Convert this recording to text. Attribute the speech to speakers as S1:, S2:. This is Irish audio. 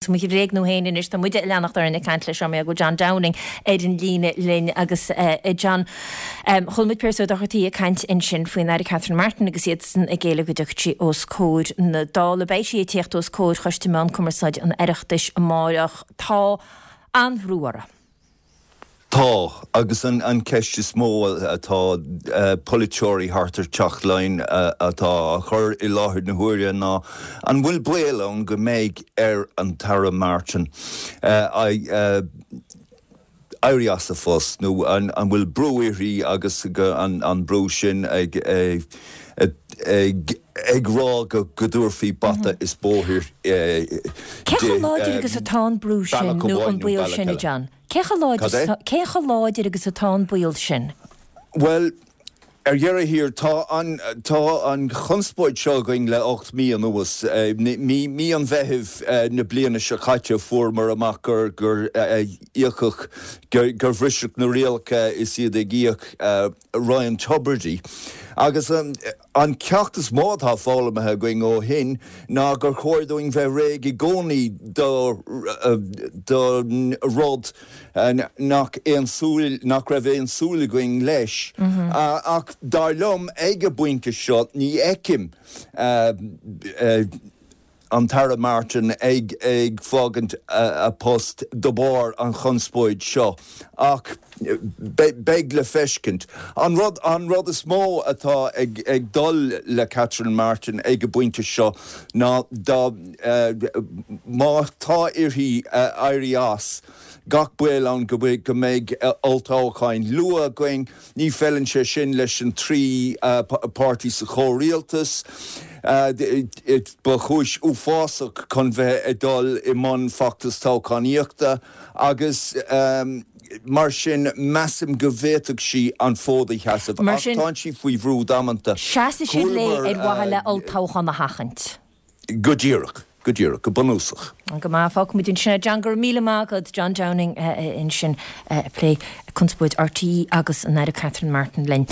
S1: Mo bhréagnú féin anois, tá muide ag leanacht orainn ag caint leis seo, mar go bhfuil John Downing ar an líne linn agus a John, chuala muid Pearse Ó Dochartaigh ag caint ansin faoin Aire Catherine Martin agus iadsan ag éileamh go dtiocfadh sí os comhair na Dála. Beidh sí ag tíocht os comhair Choiste Meán Cumarsáide an Oireachtais amáireach. Tá an-bhrú orthu.
S2: Tá, agus an cheist is mó atá polaiteoirí thart ar Teach Laighean atá á chur i láthair na huaire ná an bhfuil baol ann go mbeidh ar an tAire Martin éirí as a phost nó an bhfuil brú uirthi agus an brú sin ag rá go dtabharfaí bata is bóthar di
S1: Cé chomh láidir agus atá an brú sin nó an baol sin, a John? Cé chomh láidir,
S2: Cad é?
S1: cé chomh láidir agus atá an baol sin?
S2: Bhuel, ar dheireadh thiar, tá an, tá an chonspóid seo againn le 8 mí anuas. Mí, mí an Mheithimh na bliana seo caite fuaireamar amach gur, gur íocadh, gur, gur bhriseadh na rialacha is iad ag íoc Ryan Tubridy. Agus an, An ceacht is mó atá foghlamtha againn ó shin ná gur chóir dúinn bheith réidh i gcónaí don rud nach aon súil, nach raibh aon súil againn leis. Ach dar liom, ag an bpointe seo, ní fheicim an tAire Martin ag fágaint a post de bharr an chonspóid seo ach beidh le feiscint. An rud an rud is mó atá ag dul le Catherine Martin ag an bpointe seo ná dá má tá uirthi éirí as, gach baol ann go mbeidh olltoghcháin luath againn. Ní feileann sé sin leis an dtrí páirtí sa chomhrialtas. Ba chúis uafásach chun bheith ag dul i mbun feachtas toghchánaíochta agus mar sin measaim go bhféadfadh sí an fód a sheasamh.
S1: Mar
S2: Ach tánn sí faoi bhrú damanta.
S1: Seasfaidh siad léi ar mhaithe le olltoghchán a sheachaint.
S2: Go díreach, go díreach, go bunúsach.
S1: Go maith, fágfaimid ansin é. John, go raibh míle maith agat. John Downing ansin ag plé conspóid RTÉ agus an Aire Catherine Martin linn.